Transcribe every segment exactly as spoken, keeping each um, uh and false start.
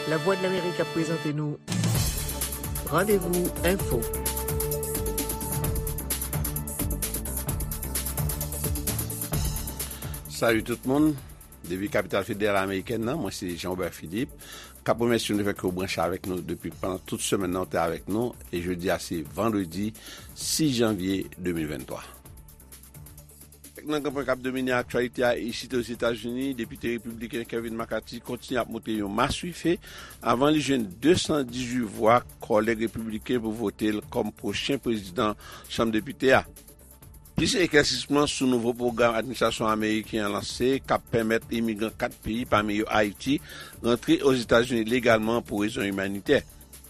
Lavwadlamerik ap prezante nou Randevou Enfo. Salut tout moun. Depi kapital federal amerikèn nan, mwen se Jean Robert Philippe. K ap remèsye nou fè ke w branche avèk nou depi pandan tout semèn nan, w te avèk nou. E jodi a se vandredi sis janvye de mil venntwa. Nan gran pwen k ap domine aktyalite a isit Ozetazini, depite repibliken Kevin McCarthy kontinye ap monte yon maswife avan li jwenn de san dizuit vwa kòlèg repibliken pou vote l kòm pwochen prezidan Chanm Depite a. Plis eklèsisman sou nouvo pwogram administrasyon ameriken an lanse k ap pèmèt imigran kat peyi, pami yo Ayiti, rantre Ozetazini legalman pou rezon imanitè.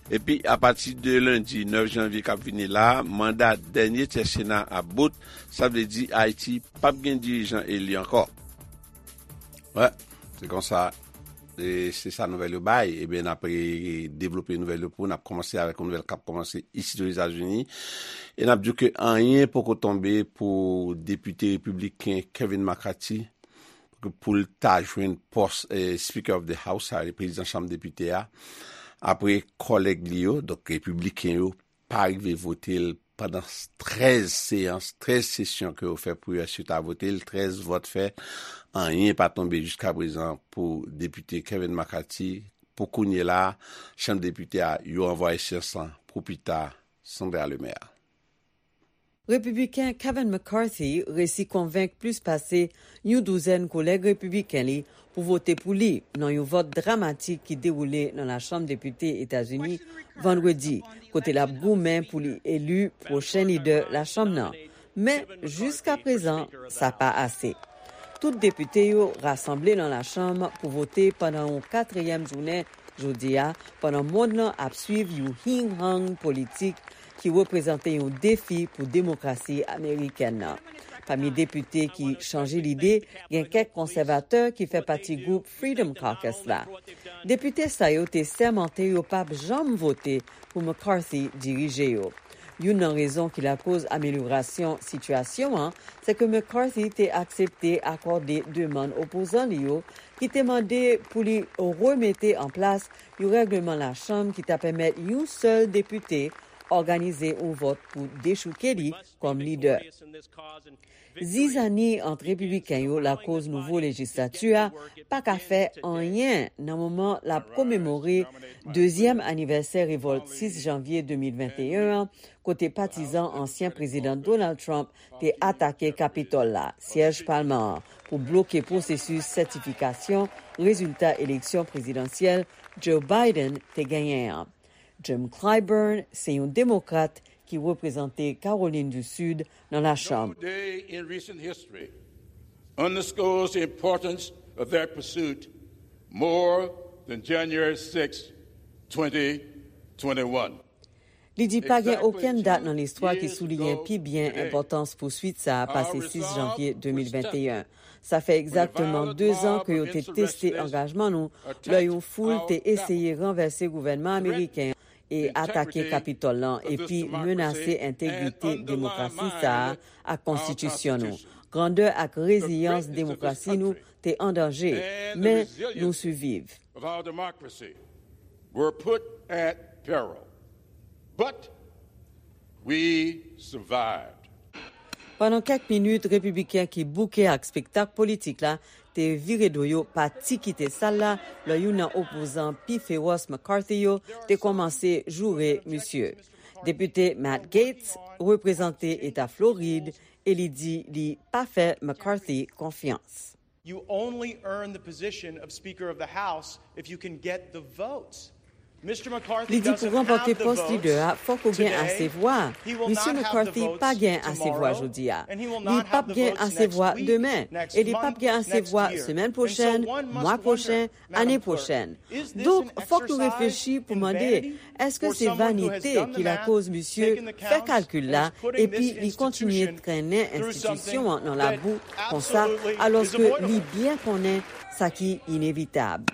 Epi, apati de lendi nèf janvye k ap vini la, manda dènye tyè Sena ap bout, sa vle di Ayiti p ap gen dirijan eli ankò. Wè, se konsa. E se sa nouvèl yo bay. Ebyen, n ap, e, devlope nouvèl yo pou n ap kòmanse avèk yon nouvèl k ap kòmanse isit Ozetazini. E n ap di w ke anyen poko tonbe pou depite repibliken Kevin McCarthy pou l ta jwenn pòs, e, Speaker of the House, sa vle prezidan Chanm Depite a, apre kòlèg li yo, donk repibliken yo, pa rive vote l pandan trèz seyans, trèz sesyon ke yo fè pou yo ensuite a vote l, trèz vòt fèt, anyen pa tonbe jiska prezan pou depite Kevin McCarthy. Pou kounye la, Chanm Depite a, yo ranvwaye seyans lan pou pita, Sandra Lemaire. Repibliken Kevin McCarthy resi konvenk plis pase yon douzèn kolèg repibliken li pou vote pou li nan yon vòt dramatik ki dewoule nan Lachanm Depite Etazini vandredi, kote l ap goumen pou li eli pwochen lidè lachanm nan. Men, jiskaprezan, sa pa ase. Tout depite yo rasanble nan lachanm pou vote pandan yon katriyèm jounen jodi a, pandan mond lan ap swiv yon hing-hang politik ki reprezante yon defi pou demokrasi amerikèn nan. Pami depite ki chanje lide, gen kèk konsèvatè ki fè pati gwoup Freedom Caucus la. Depite sa yo te sèmante yo p ap janm vote pou McCarthy dirije yo. Youn nan rezon ki lakoz amelyorasyon sitiyasyon an, se ke McCarthy te aksepte akòde demann opozan li yo, ki te mande pou li remete an plas yon règleman lachanm ki ta pèmèt yon sèl depite òganize yon vòt pou dechouke li kòm lidè. Zizani ant repibliken yo lakoz nouvo lejislati a pa ka fè anyen nan moman l ap komemore dezyèm anivèsè revòlt sis janvye de mil venteyen an, kote patizan ansyen prezidan Donald Trump te atake Kapitòl la, syèj palman an, pou bloke pwosesis sètifikasyon rezilta eleksyon prezidansyèl Joe Biden te genyen an. Jim Clyburn se yon demokrat ki reprezante Kawolin di Sid nan Lachanm. No day in recent history underscores the importance of that pursuit more than January sixth, twenty twenty-one. Li di pa gen okenn dat nan listwa ki souliyen pi byen enpòtans pouswit sa a pase sis janvye de mil venteyen. Sa fè egzakteman dezan ke yo te teste angajman nou lè yon foul te eseye ranvèse gouvènman ameriken an e atake Kapitòl lan epi menase entegrite demokrasi sa a ak konstitisyon nou. Grandè ak reziyans demokrasi nou te an danje, men nou siviv. Of our democracy were put at peril. But we survived. Pandan kèk minit, repibliken ki bouke ak spektak politik la te vire do yo, pati kite sal la, lè youn nan opozan pi fewòs McCarthy yo te kòmanse joure misye. Depite Matt Gaetz reprezante Eta Florid e li di li pa fè McCarthy konfyans. You only earn the position of Speaker of the House if you can get the votes. Li di pou ranpòte pòs lidè a, fòk ou gen ase vwa. Misye McCarthy pa gen ase vwa jodi a. Li p ap gen ase vwa demen. E li p ap gen ase vwa semèn pwochèn, mwa pwochen, ane pwochèn. Donk, fòk nou reflechi pou mande, èske se vanite ki lakoz misye fè kalkil la epi li kontinye trennen enstitisyon an nan labou konsa, alòske li byen konnen sa ki inevitab?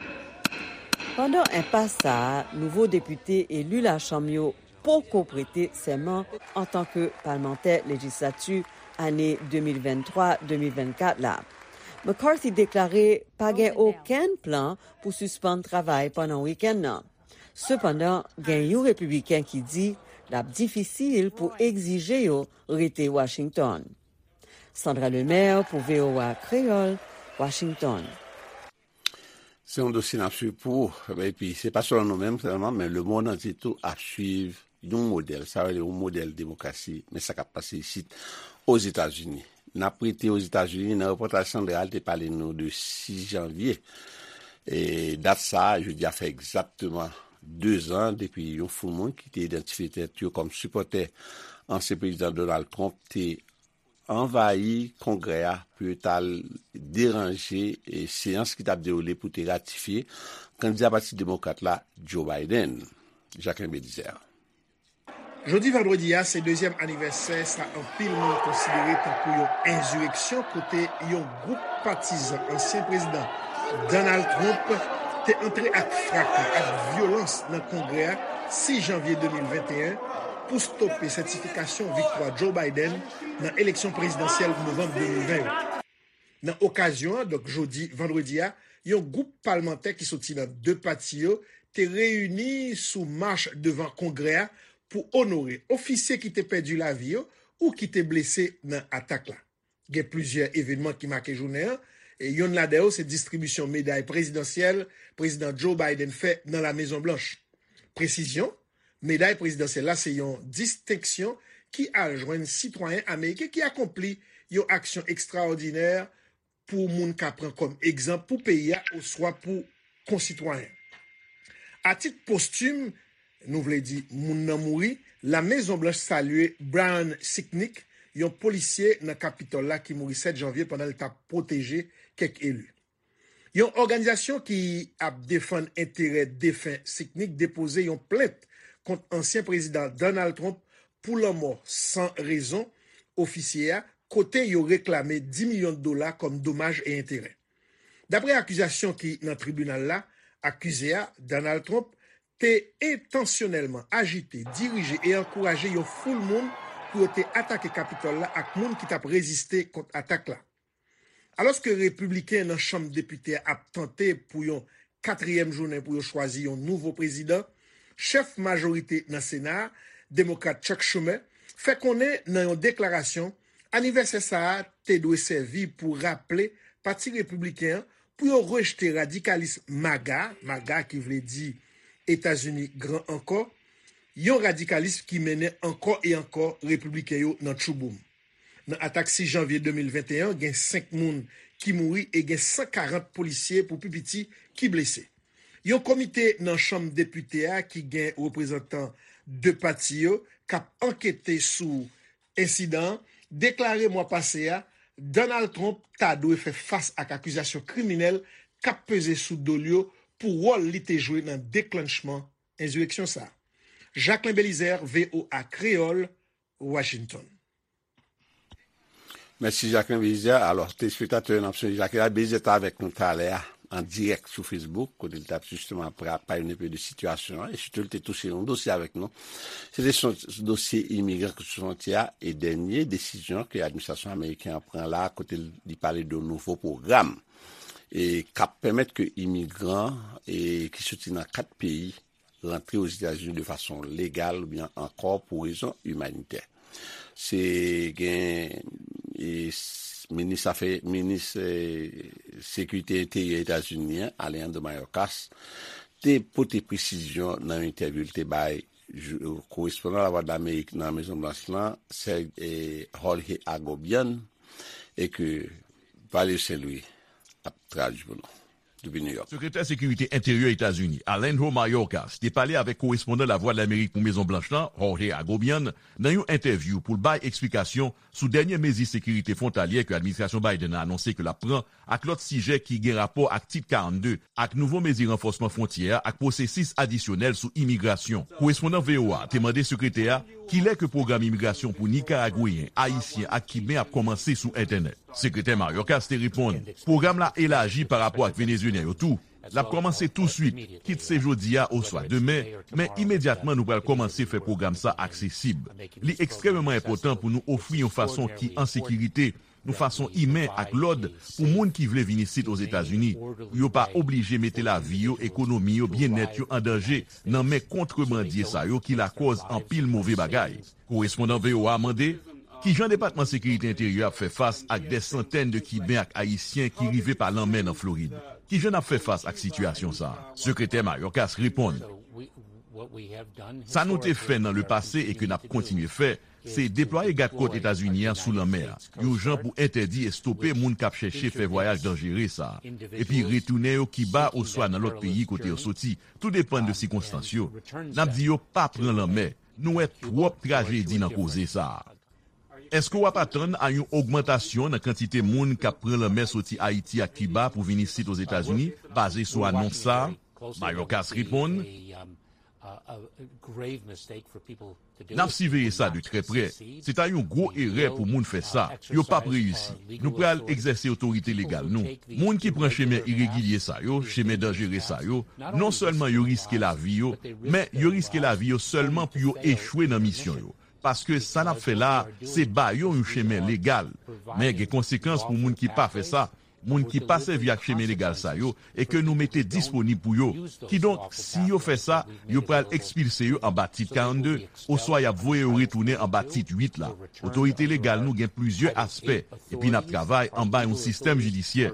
Pandan enpas sa a, nouvo depite eli Lachanm yo poko prete sèman antanke palmantè lejislati ane de mil venntwa de mil vennkat la. McCarthy deklare pa gen okenn plan pou sispann travay pandan wikenn nan. Sepandan, gen yon repibliken ki di l ap difisil pou egzije yo rete Washington. Sandra Lemaire pou V O A Kreyòl, Washington. Se yon dosye n ap swiv pou ou. Epi, se pa sèlman nou menm sèlman, men lemonn antye tou ap swiv yon modèl, sa vle di yon modèl demokrasi, men sa k ap pase isit Ozetazini. N ap rete Ozetazini nan repòtaj Sandra, li te pale nou de sis janvye. E dat sa a, jodi a fè egzakteman dezan depi yon foul moun ki te idantifye tèt yo kòm sipòtè ansyen prezidan Donald Trump te anvayi Kongrè a pou yo t al deranje e seyans ki t ap dewoule pou te ratifye kandida Pati Demokrat la, Joe Biden. Jacquelin Belizaire. Jodi vandredi a se dezyèm anivèsè sa anpil moun konsidere tankou yon enzireksyon kote yon gwoup patizan ansyen prezidan Donald Trump te antre ak fraka, ak vyolans nan Kongrè a sis janvye de mil venteyen pou stope sètifikasyon viktwa Joe Biden nan eleksyon prezidansyèl novanm de mil ven yo. Nan okazyon an, donk jodi vandredi a, yon gwoup palmantè ki soti nan de pati yo te reyini sou mach devan Kongrè a pou onore ofisye ki te pèdi lavi yo ou ki te blese nan atak la. Gen plizyè evènman ki make jounen an. E yonn ladan yo se distribisyon meday prezidansyèl Prezidan Joe Biden fè nan La Mezon Blanch. Presizyon, meday prezidansyèl la se yon distenksyon ki al jwenn sitwayen ameriken ki akonpli yon aksyon ekstraòdinè pou moun ka pran kòm egzanp pou peyi a oswa pou konsitwayen. A tit postim, nou vle di moun nan mouri, La Mezon Blanch salye Brian Sicknick, yon polisye nan Kapitòl la ki mouri sèt janvye pandan l t ap pwoteje kèk eli. Yon òganizasyon ki ap defann enterè defen Sicknick depoze yon plent kont ansyen prezidan Donald Trump pou lanmò san rezon ofisye a, kote yo reklame dis milyon dola kòm domaj e enterè. Dapre akizasyon ki nan tribinal la, akize a, Donald Trump, te entansyonèlman ajite, dirije e ankouraje yon foul moun pou yo te atake Kapitòl la ak moun ki t ap reziste kont atak la. Alòske Repibliken nan Chanm Depite a ap tante pou yon katriyèm jounen pou yo chwazi yon nouvo prezidan, chèf majorite nan Sena a, Demokrat Chuck Schumer, fè konnen nan yon deklarasyon anivèsè sa a te dwe sèvi pou raple Pati Repibliken an pou yo rejte radikalis MAGA, MAGA ki vle di Etazini Gran Ankò, yon radikalis ki mennen ankò e ankò Repibliken yo nan tchouboum. Nan atak sis janvye de mil venteyen an, gen senk moun ki mouri e gen san karant polisye pou pi piti ki blese. Yon komite nan Chanm Depite a ki gen reprezantan de pati yo k ap ankete sou ensidan an deklare mwa pase a Donald Trump ta dwe fè fas ak akizasyon kriminèl k ap peze sou do l yo pou wòl li te jwe nan deklanchman ensireksyon sa a. Jacquelin Belizaire, V O A Kreyòl, Washington. Mèsi Jacquelin Belizaire. Alò, telespektatè yo, n ap sonje Jacquelin Belizaire te avèk nou talè a an dirèk sou Facebook, kote l t ap jisteman pa yon enpe de sitiyasyon an, e sitou l te touche yon dosye avèk nou. Se te sou dosye imigran ki sou fwontyè a e dènye desizyon ke administrasyon ameriken an pran la, kote li pale de nouvo pwogram e k ap pèmèt ke imigran e ki soti nan kat peyi rantre Ozetazini de fason legal oubyen ankò pou rezon imanitè. Se gen e, minis afè minis e, sekirite enteryè Etazini an, Alejandro Mayorkas, te pote presizyon nan yon entèvyou l te bay korespondan Lavwadlamerik nan Mezon Blanch lan, Sè e, Jorge Agobian, e ke Valerio Saint Louis ap tradui pou nou. Depi New York. Sekretè Sekirite Enteryè Etazini, Alejandro Mayorkas, te pale avèk korespondan Lavwadlamerik pou Mezon Blanch lan, Jorge Agobian, nan yon entèvyou pou l bay eksplikasyon sou dènye mezi sekirite fwontalyè ke administrasyon Biden nan anonse ke l ap pran ak lòt sijè ki gen rapò ak Tit karannde ak nouvo mezi ranfòsman fwontyè a ak pwosesis adisyonèl sou imigrasyon. Korespondan V O A te mande sekretè a kilè ke pwogram imigrasyon pou Nikaragweyen, Ayisyen ak Kiben ap kòmanse sou entènèt. Sekretè Mayorkas te reponn, pwogram la elaji pa rapò ak Venezuelyen yo tou. L ap kòmanse touswit, kit se jodi a oswa demen, men imedyatman nou pral kòmanse fè pwogram sa aksesib. Li ekstrèmeman enpòtan pou nou ofri yon fason ki an sekirite yon fason imen ak lòd pou moun ki vle vin isit Ozetazini, pou yo pa oblije mete lavi yo, ekonomi yo, byennèt yo an danje nan men kontrebandye sa yo ki lakòz anpil move bagay. Korespondan V O A mande, kijan Depatman Sekirite Enteryè ap fè fas ak dè santèn de Kiben ak Ayisyen ki rive pa lanmè nan Florid? Kijan n ap fè fas ak sitiyasyon sa a? Sekretè Mayorkas reponn, sa nou te fè nan lepase e ke n ap kontinye fè, se deplwaye gad kòt Etazini an sou lanmè a, yon jan pou entèdi e stope moun k ap chèche fè vwayaj danjere sa a, epi retounen yo Kiba oswa nan lòt peyi kote yo soti, tou depann de sikonstans yo. N ap di yo pa pran lanmè. Nou wè twòp trajedi nan koze sa a. Èske w ap atann a yon ogmantasyon nan kantite moun k ap pran lanmè soti Ayiti ak Kiba pou vin isit Ozetazini, baze sou anons sa a? Mayorkas reponn, n ap siveye sa de trè prè. Se ta yon gwo erè pou moun fè sa. Yo p ap reyisi. Nou pral egzèse otorite legal nou. Moun ki pran chemen iregilye sa yo, chemen danjere sa yo, non sèlman yo riske lavi yo, men yo riske lavi yo sèlman pou yo echwe nan misyon yo. Paske sa n ap fè la a, se ba yo yon chemen legal. Men gen konsekans pou moun ki pa fè sa, moun ki pa sèvi ak chemen legal sa yo e ke nou mete disponib pou yo. Kidonk, si yo fè sa, yo pral ekspilse yo anba Tit karannde, oswa y ap voye yo retounen anba Tit uit la. Otorite legal nou gen plizyè aspè, epi n ap travay anba yon sistèm jidisyè.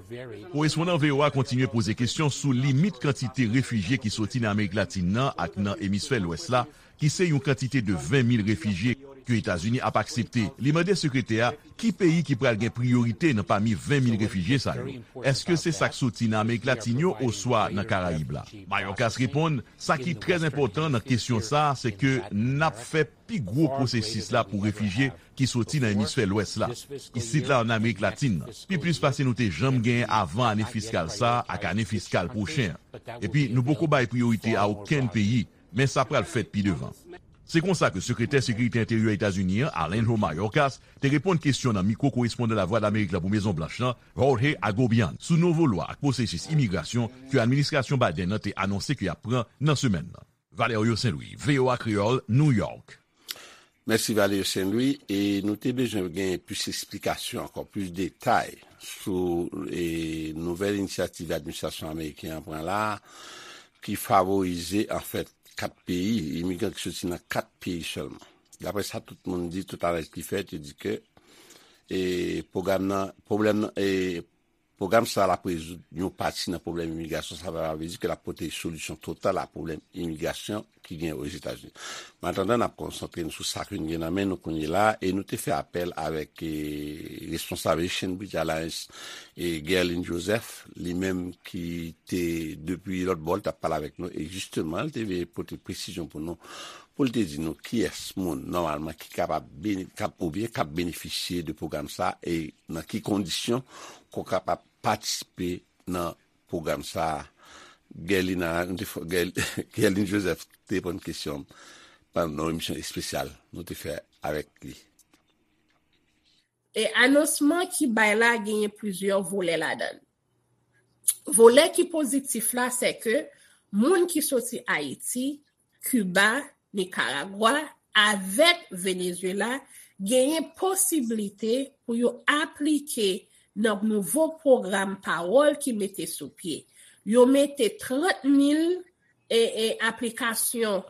Korespondan V O A kontinye poze kesyon sou limit kantite refijye ki soti nan Amerik Latin nan ak nan emisfè Lwès la, ki se yon kantite de ven mil refijye ke Etazini ap aksepte. Li mande sekretè a ki peyi ki pral gen priyorite nan pami ven mil refijye sa yo. Èske se sa k soti nan Amerik Latin yo oswa nan Karayib la? Mayorkas reponn, sa ki trè enpòtan nan kesyon sa a, se ke n ap fè pi gwo pwosesis la pou refijye ki soti nan emisfè Lwès la. Isit la ann Amerik Latin nan, pi plis pase nou te janm genyen avan ane fiskal sa a ak ane fiskal pwochen an. Epi nou poko bay priyorite a okenn peyi, men sa pral fèt pi devan. Se konsa ke Sekretè Sekirite Enteryè Etazini an, Alejandro Mayorkas, te reponn kesyon nan mikwo korespondan Lavwadlamerik la pou Mezon Blanch lan, Jorge Agobian, sou nouvo lwa ak pwosesis imigrasyon ke administrasyon Biden nan te anonse ke y ap pran nan semèn nan. Valerio Saint Louis, V O A Kreyòl, New York. Mèsi Valerio Saint Louis, e nou te bezwen gen plis eksplikasyon ankò, plis detay sou e, nouvèl inisyativ administrasyon ameriken an pran la a, ki favorize anfèt kat peyi, imigran ki soti nan kat peyi sèlman. Daprè sa tout moun di, tout analiz ki fèt, yo di ke e, pwogram nan, pwoblèm nan, e, pwogram sa l ap rezoud yon pati nan pwoblèm imigrasyon, sa pa vle di ke l ap pote solisyon total a pwoblèm imigrasyon ki gen Ozetazini. Men antandan, n ap konsantre nou sou sa ke n gen nan men nou kounye la, e nou te fè apèl avèk e, responsab Haitian Bridge Alliance, e Guerline Joseph, li menm ki te depi lòt bò, l t ap pale avèk nou, e jisteman, l te vle pote presizyon pou nou, pou l te di nou kiyès moun, nòmalman, ki kapab, k ap, oubyen k ap benefisye de pwogram sa, e nan ki kondisyon ke w kapab patisipe nan pwogram sa a. Guerline Joseph te reponn kesyon pandan yon emisyon espesyal nou te fè avèk li. E anonsman ki bay la genyen plizyè volè ladan l. Volè ki pozitif la, se ke moun ki soti Ayiti, Kiba, Nikaragwa avèk Venezuela genyen posiblite pou yo aplike nan nouvo pwogram pawòl ki mete sou pye. Yo mete trant mil e, e, aplikasyon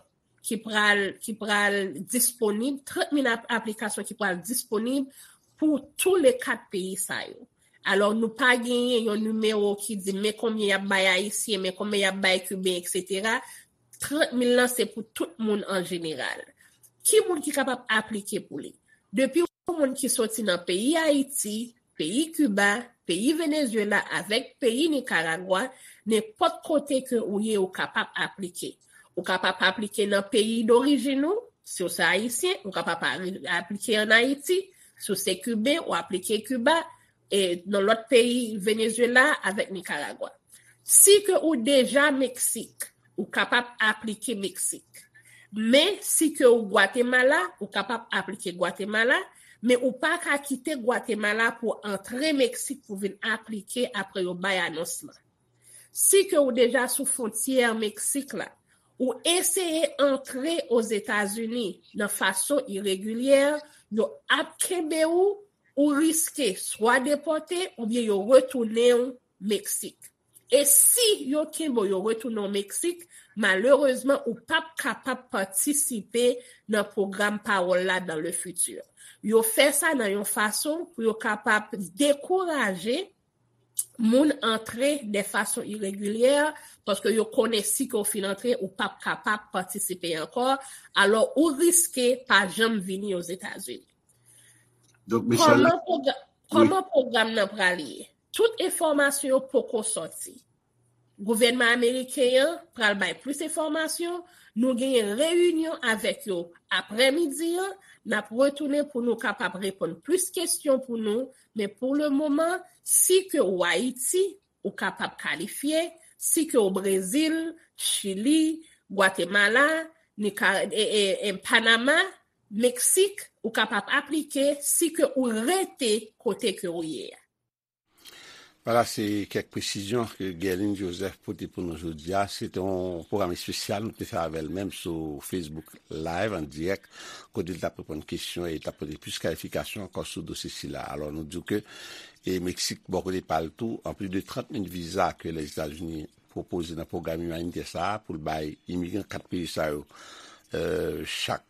ki pral, ki pral disponib, trant mil ap, aplikasyon ki pral disponib pou tou le kat peyi sa yo. Alò, nou pa genyen yon nimewo ki di men konbyen y ap bay Ayisyen, men konbyen y ap bay Kiben, etsetera. Trant mil lan se pou tout moun an jeneral. Ki moun ki kapab aplike pou li? Depi yon moun ki soti nan peyi Ayiti, peyi Kiba, peyi Venezuela avèk peyi Nikaragwa, nenpòt kote ke ou ye, ou kapab aplike. Ou kapab aplike nan peyi dorijin ou, si w se Ayisyen, ou kapab aplike ann Ayiti, si w se Kiben, ou aplike Kiba, e nan lòt peyi Venezuela avèk Nikaragwa. Si ke ou deja Meksik, ou kapab aplike Meksik. Men si ke ou Gwatemala, ou kapab aplike Gwatemala, men ou pa ka kite Gwatemala pou antre Meksik pou vin aplike apre yo bay anons lan. Si ke ou deja sou fwontyè Meksik la, ou eseye antre Ozetazini nan fason iregilyè, yo ap kenbe ou ou riske swa depòte oubyen yo retounen w Meksik. E si yo kenbe w, yo retounen w Meksik, malerezman, ou p ap kapab patisipe nan pwogram pawòl la dans le futur. Yo fè sa nan yon fason pou yo kapab dekouraje moun antre de fason iregilyè, paske yo konnen si ke w fin antre, ou p ap kapab patisipe ankò, alò ou riske pa janm vini Ozetazini. Donk, Michel, kòman pwogra-, wi, kòman pwogram nan pral ye? Tout enfòmasyon yo poko sòti. Gouvènman ameriken an pral bay plis enfòmasyon. Nou genyen reyinyon avèk yo aprèmidi an. N ap retounen pou nou kapab reponn plis kesyon pou nou. Men pou le moman, si ke w Ayiti, ou kapab kalifye. Si ke w Brezil, Chili, Gwatemala, Nika-, e, e, e, Panama, Meksik, ou kapab aplike. Si ke ou rete kote ke ou ye a. Vwala, se kèk presizyon ke Guerline Joseph pote pou nou jodi a. Se te yon pwogram espesyal nou te fè avè l menm sou Facebook Live an dirèk, kote l t ap reponn kesyon e l t ap pote plis klarifikasyon ankò sou dosye sila. Alò, nou di w ke, e Meksik, bò kote pa l tou, anplis de trant mil viza ke Lèzetazini pwopoze nan pwogram imanitè sa a pou l bay imigran kat peyi sa yo, e, chak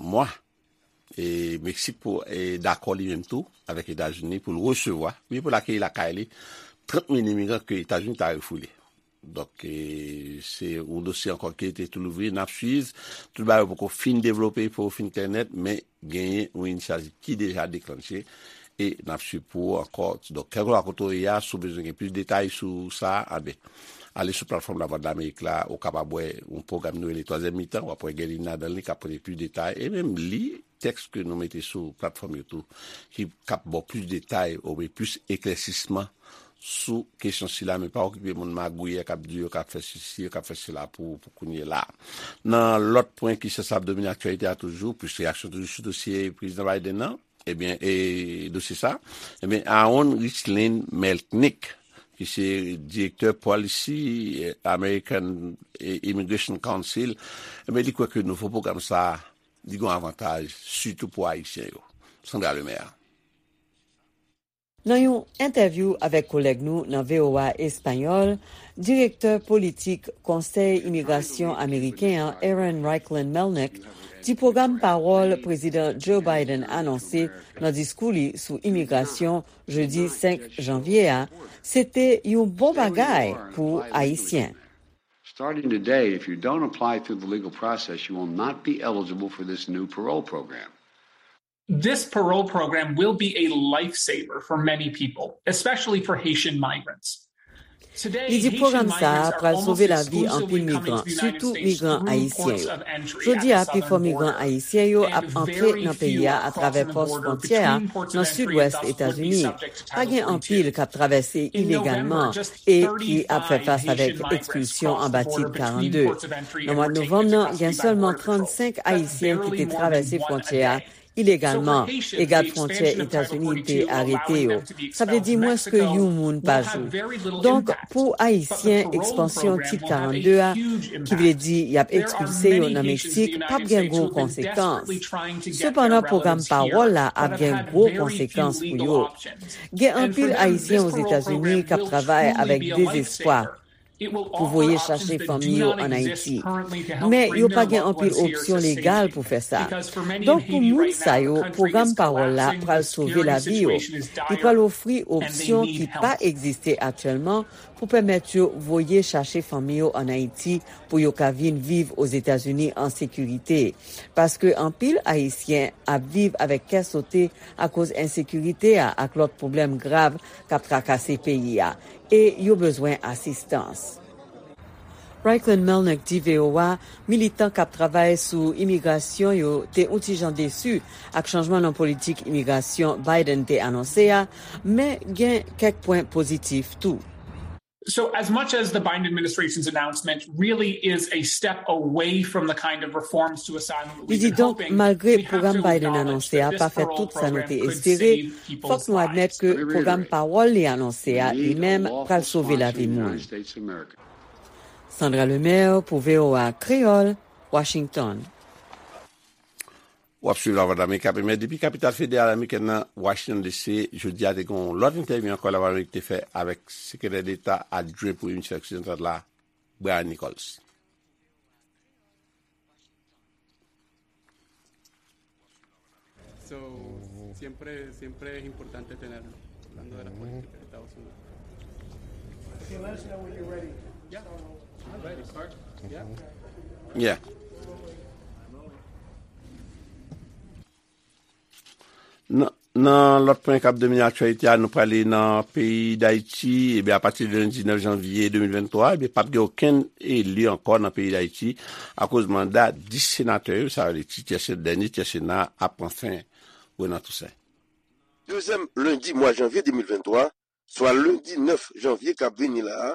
mwa, e Meksik pou, e, dakò li menm tou avèk Etazini pou l resevwa, oubyen pou l akeyi lakay li, trant mil imigran ke Etazini ta refoule. Donk, e, se yon dosye ankò ki rete tou louvri, n ap swiv. Tout bagay yo poko fin devlope, poko fin klè nèt, men genyen yon inisyativ ki deja deklanche e n ap swiv pou ou ankò. Donk, kèlkeswa kote w ye a, si w bezwen gen plis detay sou sa, anben, ale sou platfòm Lavwadlamerik la, ou kapab wè yon pwogram nou rele Twazyèm Mitan, w ap wè Guerline ladan li k ap pote plis detay, e menm li tèks ke nou mete sou platfòm yo tou, ki k ap ba w plis detay, oubyen plis eklèsisman sou kesyon sila, men pa okipe moun magouyè k ap di yo k ap fè sesi, yo k ap fè sela pou, pou kounye la. Nan lòt pwen ki sansib domine aktyalite a toujou, plis reyaksyon toujou sou dosye Prezidan Biden nan, ebyen, e dosye sa, ebyen, Aaron Richlin Melnick, ki se direktè Policy, e, American, e, Immigration Council, ebyen, li kwè ke nouvo pwogram sa, li gen avantaj, sitou pou Ayisyen yo. Sandra Lemaire. Nan yon entèvyou avèk kolèg nou nan V O A Espayòl, direktè politik Konsèy Imigrasyon Ameriken an, Aaron Reichlin Melnick, di pwogram pawòl Prezidan Joe Biden anonse nan diskou li sou imigrasyon jedi senk janvye a, se te yon bon bagay pou Ayisyen. Starting today, if you don't apply through the legal process, you will not be eligible for this new parole program. This parole program will be a lifesaver for many people, especially for Haitian migrants. Li di pwogram sa a pral sove lavi anpil migran, sitou migran ayisyen yo. Jodi a, pifò migran ayisyen yo ap antre nan peyi a atravè pòs fwontyè a nan sidwès Etazini. Pa gen anpil k ap travèse ilegalman e ki ap fè fas avèk ekspilsyon anba Tit karannde. Nan mwa novanm nan, gen sèlman trannsenk Ayisyen ki te travèse fwontyè a ilegalman e gad fwontyè Etazini te arete yo. Sa vle di mwens ke yon moun pa jou. Donk, pou Ayisyen, ekspansyon Tit karannde a, ki vle di y ap ekspilse yo nan Meksik, p ap gen gwo konsekans. Sepandan, pwogram pawòl la ap gen gwo konsekans pou yo. Gen anpil Ayisyen Ozetazini k ap travay avèk dezespwa pou voye chache fanmi yo ann Ayiti. Men, yo pa gen anpil opsyon legal pou fè sa. Donk, pou moun sa yo, pwogram pawòl la pral sove lavi yo. Li pral ofri opsyon ki pa egziste aktyèlman pou pèmèt yo voye chache fanmi yo ann Ayiti pou yo ka vin viv Ozetazini an sekirite. Paske anpil Ayisyen ap viv avèk kè sote akoz ensekirite a ak lòt pwoblèm grav k ap trakase peyi a, e yo bezwen asistans. Reichlin Melnick di V O A militan k ap travay sou imigrasyon yo te yon ti jan desi ak chanjman nan politik imigrasyon Biden te anonse a, men gen kèk pwen pozitif tou. So, as much as the Biden administration's announcement really is a step away from the kind of reforms to asylum that we've been hoping, we have to acknowledge that this parole program could save people's lives. Fòk nou admèt ke pwogram pawòl li anonse a li menm pral sove lavi moun. Sandra Lemaire pou V O A Kreyòl, Washington. W ap swiv Lavwadlamerik ap emèt depi kapital federal amerikèn nan, Washington D C. Jodi a, te gen yon lòt entèvyou ankò Lavwadlamerik te fè avèk Sekretè Deta Adjwen pou Emisfè Oksidantal la, Brian Nichols. So, siempre, siempre es importante tenerlo, hablando de la política de Estados Unidos. Okay, let us know when you're ready. Yeah, I'm ready, sir. Yeah. Yeah. Nan, nan lòt pwen k ap domine aktyalite a, nou prale nan peyi Dayiti. Ebyen, apati de lendi nèf janvye de mil venntwa, ebyen, p ap gen okenn eli ankò nan peyi Dayiti akoz manda dis senatè yo, sa vle di tyè, dènye tyè Sena a, ap pran fen. Renan Toussaint. Dezyèm lendi mwa janvye de mil venntwa, swa lendi nèf janvye k ap vini la a,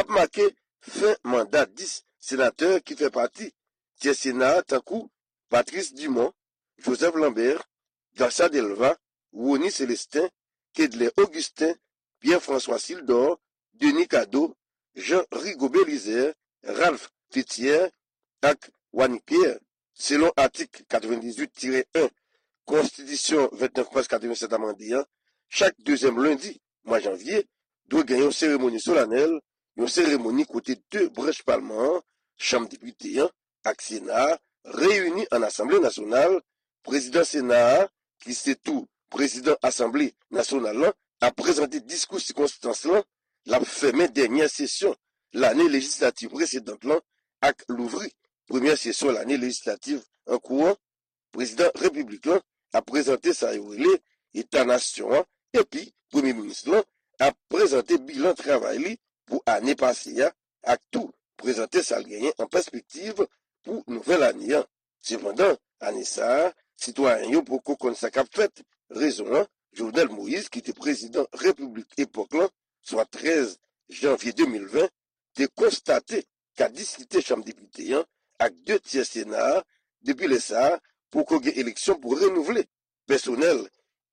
ap make fen manda dis senatè ki fè pati tyè Sena a, tankou Patrice Dumont, Joseph Lambert, Garcia Delva, Rony Célestin, Kedlè Augustin, Pierre François Sildor, Denis Cadeau, Jean Rigobert Lizer, Ralph Féthière ak Wanick Pierre. Selon atik katrevendizuit tirè en Konstitisyon vennèf mas katrevennsèt amande a, chak dezyèm lendi mwa janvye, dwe gen yon seremoni solanèl, yon seremoni kote de branch palman an, Chanm Depite an ak Sena a, reyini ann Asanble Nasyonal. Prezidan Sena a, ki se tou Prezidan Asanble Nasyonal lan, ap prezante diskou sikonstans lan, l ap fèmen dènyè sesyon lane lejislativ presedan lan ak louvri premyè sesyon lane lejislativ an kou an. Prezidan Repiblik lan ap prezante sa yo rele Eta Nasyon an, epi Premye Minis lan ap prezante bilan travay li pou ane pase a ak tou prezante sa l genyen an pèspektiv pou nouvèl ane an. Sepandan, ane sa a, sitwayen yo poko konn sa k ap fèt. Rezon an, Jovenel Moïse, ki te prezidan repiblik epòk lan, swa trèz janvye de mil ven, te konstate kadisite Chanm Depite an ak de tyè Sena a. Depi lè sa a, poko gen eleksyon pou renouvle pèsonèl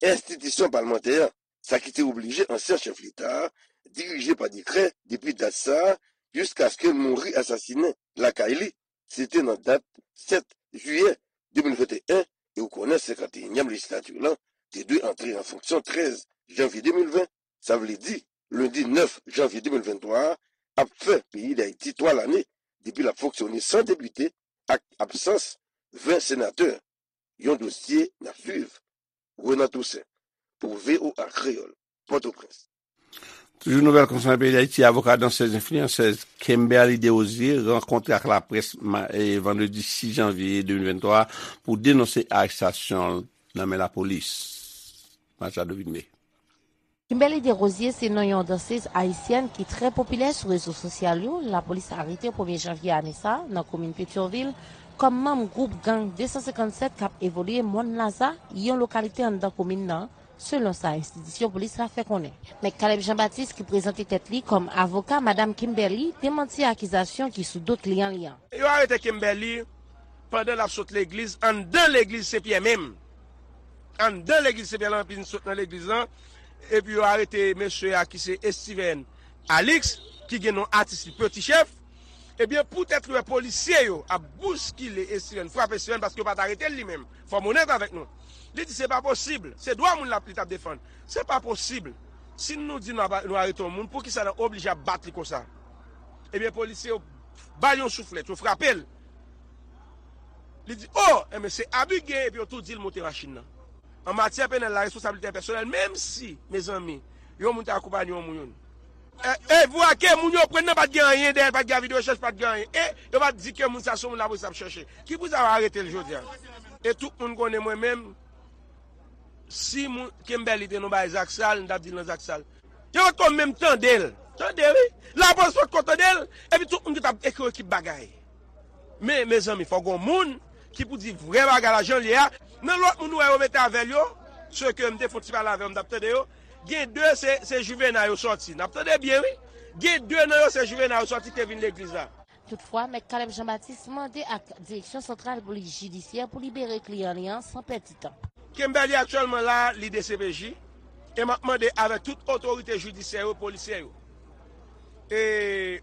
enstitisyon palmantè an, sa ki te oblije ansyen chèf Leta a dirije pa dekrè depi dat sa a jiskaske l mouri asasinen lakay li. Se te nan dat sèt jiyè de mil venteyen, e ou konnen senkanteyinyèm lejislati lan te dwe antre an fonksyon trèz janvye de mil ven. Sa vle di, lendi nèf janvye de mil venntwa a ap fè peyi Dayiti twa lane depi l ap fonksyone san depite ak absans ven senatè. Yon dosye n ap swiv. Renan Toussaint, pou V O A Kreyòl, Pòtoprens. Toujou nouvèl konsènan peyi Dayiti, avoka dansèz enfliyansèz Kimberly Desrosiers rankontre ak laprès vandredi sis janvye de mil venntwa pou denonse arestasyon l nan men lapolis. Machado Vilmé. Kimberly Desrosiers se non yon dansèz ayisyèn ki trè popilè sou rezo sosyal yo. Lapolis arete premye janvye ane sa a nan komin Petyonvil kòm manm gwoup gang de san senkann sèt k ap evolye Mòn Laza, yon lokalite anndan komin nan, selon sa enstitisyon polis la fè konnen. Mèt Caleb Jean Baptiste, ki prezante tèt li kòm avoka Madam Kimberly, demanti akizasyon ki sou do kliyan li an. Yo arete Kimberly pandan l ap sot legliz anndan legliz Sen Pyè menm. Anndan legliz Sen Pyè lan, epi l sot nan legliz lan, epi yo arete mesye a ki se Estiven Alix, ki gen non atis li Peti Chèf. Ebyen, poutèt li wè polisye yo ap bouskile Estiven, frape Estiven, paske yo pa t arete l li menm. Fò m onèt avèk nou. Li di se pa posib, se dwa moun l ap, li t ap defann. Se pa posib. Si nou di nou ap, nou arete yon moun, poukisa n ap oblije ap bat li konsa? Ebyen, polisye yo ba l yon souflèt, yo frape l. Li di, o, enben se abi k gen, epi yo tou di l monte machin nan. An matyè penal la, responsablite pèsonèl, menm si, mezanmi, yon moun te akonpaye yon moun, e, e vwa ke moun yo pran nan pa t gen anyen dèyè l, pa t gen avi de rechèch, pa t gen anyen. E yo pa t di ke moun sa se yon moun lapolis ap chèche. Ki pou sa yo arete l jodi a? E tout moun konnen mwen menm, si moun, Kimberly te nan bagay zak sal, m t ap di l nan zak sal. Yo potko menm tande l. Tande wi. Lapolis potko tande l. Epi tout moun ki t ap ekri ekip bagay. Men, mezanmi, fò gon moun ki pou di vrè bagay la jan l ye a. Nan lòt moun ou wè yo mete avè l yo, se ke m te fon ti pale avè yo, m t ap tande yo. Gen de se, se Juvena yo sòti. N ap tande byen wi. Gen de nan yo se Juvena yo sòti ki te vin legliz la. Toutfwa, Mèt Caleb Jean Baptiste mande ak Direksyon Santral Polis Jidisyè pou libere kliyan li an san pèdi tan. Kimberly aktyèlman la, li D C P J, e m ap mande avèk tout otorite jidisyè yo, polisyè yo, e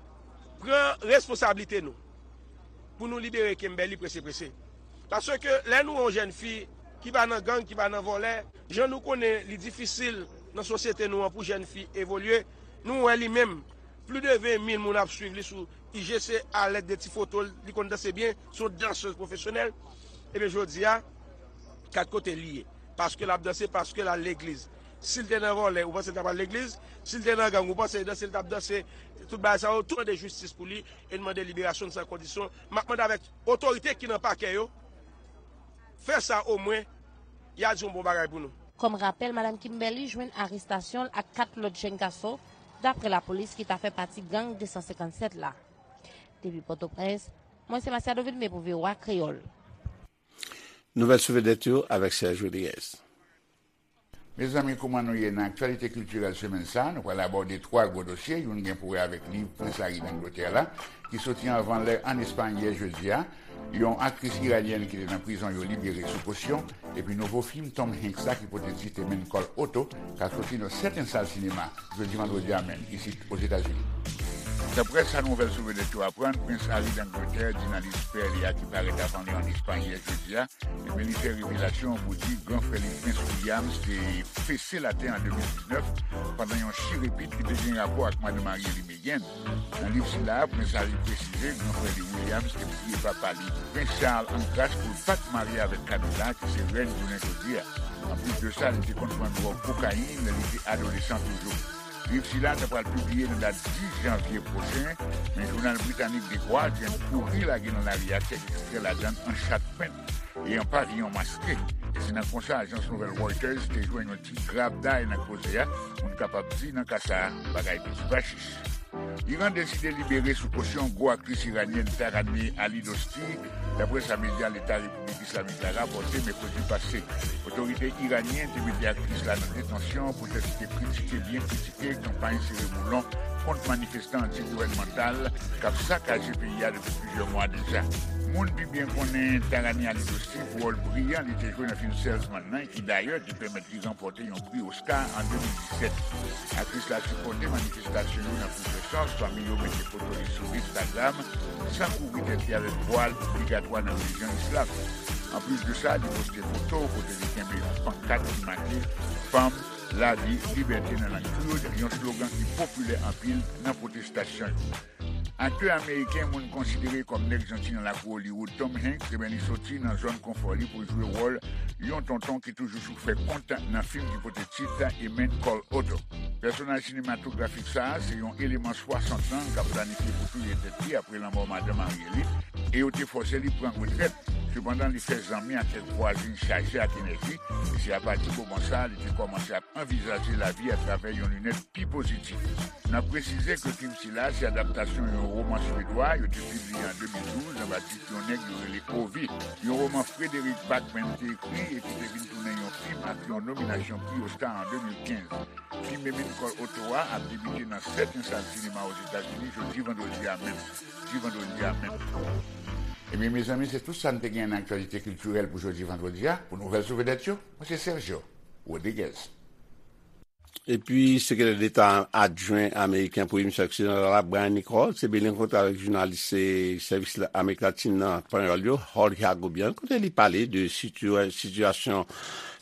pran responsablite nou pou nou libere Kimberly prese prese. Paske lè nou wè yon jèn fi ki pa nan gang, ki pa nan vòlè, jan nou konnen li difisil nan sosyete nou an pou jèn fi evolye, nou wè li menm, plis de ven mil moun ap swiv li sou I G C alèd de ti foto l, li konn danse byen, se yon dansèz pwofesyonèl. Ebyen, jodi a, kat kote li ye? Paske l ap danse, paske l al legliz. Si l te nan vòlè, ou panse l t ap al legliz? Si l te nan gang, ou panse danse l t ap danse? Tout bagay sa yo, tou mande jistis pou li e n mande liberasyon l san kondisyon. M ap mande avèk otorite ki nan pakè yo, fè sa omwen, y a di yon bon bagay pou nou. Kòm rapèl, Madam Kimberly jwenn arestasyon l ak kat lòt jèn gason, daprè lapolis, ki ta fè pati gang de san senkann sèt la. Depi Pòtoprens, mwen se Masiado Vilmé pou V O A Kreyòl. Nouvèl sou vedèt yo avèk Serge Rodriguez. Mezanmi, kouman nou ye nan aktyalite kiltirèl semèn sa a? Nou pral abòde twa gwo dosye. Youn gen pou wè avèk liv Prens Harry d Angletè la, ki soti anvan lè ann Espay yè jedi a. Yon aktris iranyèn ki te nan prizon yo libere sou kosyon. Epi nouvo fim Tom Hanks la ki pote tit A Man Called Otto ka soti nan sèten sal sinema jodi vandredi a menm isit Ozetazini. Daprè sa nouvèl sou vedèt yo aprann, Prens Harry d Angletè di nan liv pè li a ki parèt avan li ann Espay yè jedi a, ebyen, li fè revelasyon pou di gran frè li, Prens Williams, te fese latè an de mil diznèf pandan yon chirepit ki te gen rapò ak madan marye li, Meghan. Nan liv sila a, Prens Harry presize gran frè li, Williams, te priye papa li, Prens Charles, an gras pou l pa t marye avèk Camilla, ki se rèn jounen jodi a. Anplis de sa, li te konn pran dwòg kokayin lè li te adolesan toujou. Liv sila ta pral pibliye nan dat dis janvye pwochen, men jounal britanik The Guardian kouri lage nan lari a kèk ekstrè ladan l an chat pent e an paviyon maske. E se nan konsa ajans nouvèl Reuters te jwenn yon ti grabday nan koze a, moun kapab di nan ka sa a, bagay piti pa chich. Iran deside libere sou kosyon gwo aktris iranyèn Taraneh Ali Dosti, daprè sa medya Leta Repiblik Islamik la rapòte mèkredi pase. Otorite iranyèn te mete aktris la nan detansyon poutèt li te kritike, byen kritike kanpay sere boulon kont manifestan anti-gouvènmantal k ap sakaje peyi a depi plizyè mwa deja. Moun pi byen konnen Taraneh Ali Dosti pou wòl briyan li te jwe nan fim Salesman nan, ki dayè te pèmèt li ranpòte yon pri Oscar an de mil disèt. Aktris la sipòte manifestasyon yo nan plizyè sans, pami yo mete foto li sou Instagram, san kouvri tèt li avèk vwal obligatwa nan relijyon islam. Anplis de sa, li poste foto kote li kenbe yon pankat ki make Fanm, Lavi, Libète nan lang Kurd, yon slogan ki popilè anpil nan pwotestasyon yo. Aktè ameriken moun konsidere kòm nèg janti nan lakou Hollywood, Tom Hanks, ebyen, li soti nan zòn konfò li pou jwe wòl yon tonton ki toujou sou fè kont nan fim ki pote tit A Man Called Otto. Pèsonaj sinematografik sa a se yon eleman swasant an k ap planifye pou touye tèt li apre lanmò madan marye li, e yo te fòse li pran retrèt. Sepandan, li fè zanmi ak kèk vwazen chaje ak enèji, e se apati moman sa a li te kòmanse ap anvizaje lavi atravè yon linèt pi pozitif. N ap presize ke fim sila se adaptasyon yon woman swedwa yo te pibliye an de mil douz anba tit yon nèg yo rele Ovi, yon woman Frederick Backman te ekri e ki te vin tounen yon fim ak yon nominasyon pri Oscar an de mil kenz. Fim A Man Called Otto a ap debite nan sèten sal sinema Ozetazini jodi vandredi a menm. Jodi vandredi a menm. Ebyen, mezanmi, se tout sa n te gen nan aktyalite kiltirèl pou jodi vandredi a. Pou nouvèl sou vedèt yo, mwen se Sergio Rodriguez. Epi, sekretè deta adjwen ameriken pou emisyon oksidantal la, Brian Nichols, te byen rankontre avèk jounalis, eh, sèvis la, Amerik Latin nan Panyòl yo, Jorge Agobian, kote li pale de situa-, sitiyasyon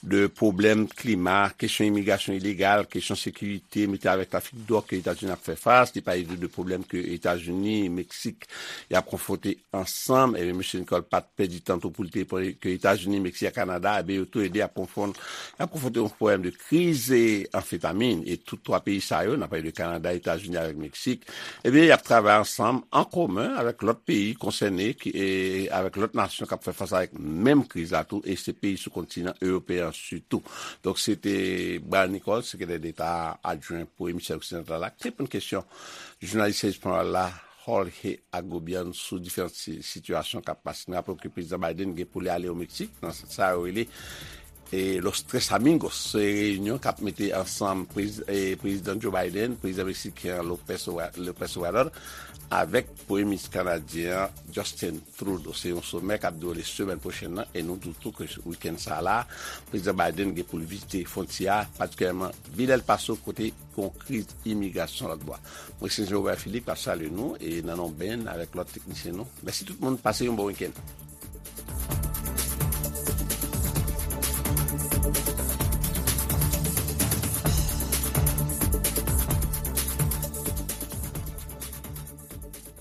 de pwoblèm klima, kesyon imigrasyon ilegal, kesyon sekirite, mete avèk trafik dwòg ke Etazini ap fè fas. Li pale tou de pwoblèm ke Etazini, Meksik, y ap konfwonte ansanm. Ebyen, mesye Nicole pa t pèdi tan tou pou l te pale ke Etazini, Meksik ak Kanada, ebyen, yo tou le de ap konfwon-, y ap konfwonte yon pwoblèm de kriz, e, anfetamin. E tout twa peyi sa yo, n ap pale de Kanada, Etazini avèk Meksik, ebyen, y ap travay ansanm, an komen, avèk lòt peyi konsène, ki, e, avèk lòt nasyon k ap fè fas avèk menm kriz la tou, e se peyi sou kontinan ewopeyen an sitou. Donk, se te Brian Nichols, sekretè deta adjwen pou emisfè oksidantal la, ki te reponn kesyon jounalis sèvis panyòl la, Jorge Agobian, sou diferan si-, sitiyasyon k ap pase. Nou raple ke Prezidan Biden gen pou li ale o Meksik, nan sa yo rele, e, Los Tres Amigos. Se reyinyon k ap mete ansanm prez-, e, Prezidan Joe Biden, Prezidan meksiken an Lopez Obra-, Lopez Obrador, avèk Premye Minis kanadyen an, Justin Trudeau. Se yon somè k ap dewoule semèn pwochèn nan, e nou di w tou ke wikenn sa a la, Prezidan Biden gen pou l vizite fwontyè a, patikilyèman vil El Paso, kote gen yon kriz imigrasyon lòt bò a. Mwen se Jean Robert Philippe k ap salye nou, e nan non Ben avèk lòt teknisyen nou. Mèsi tout moun, pase yon bon wikenn.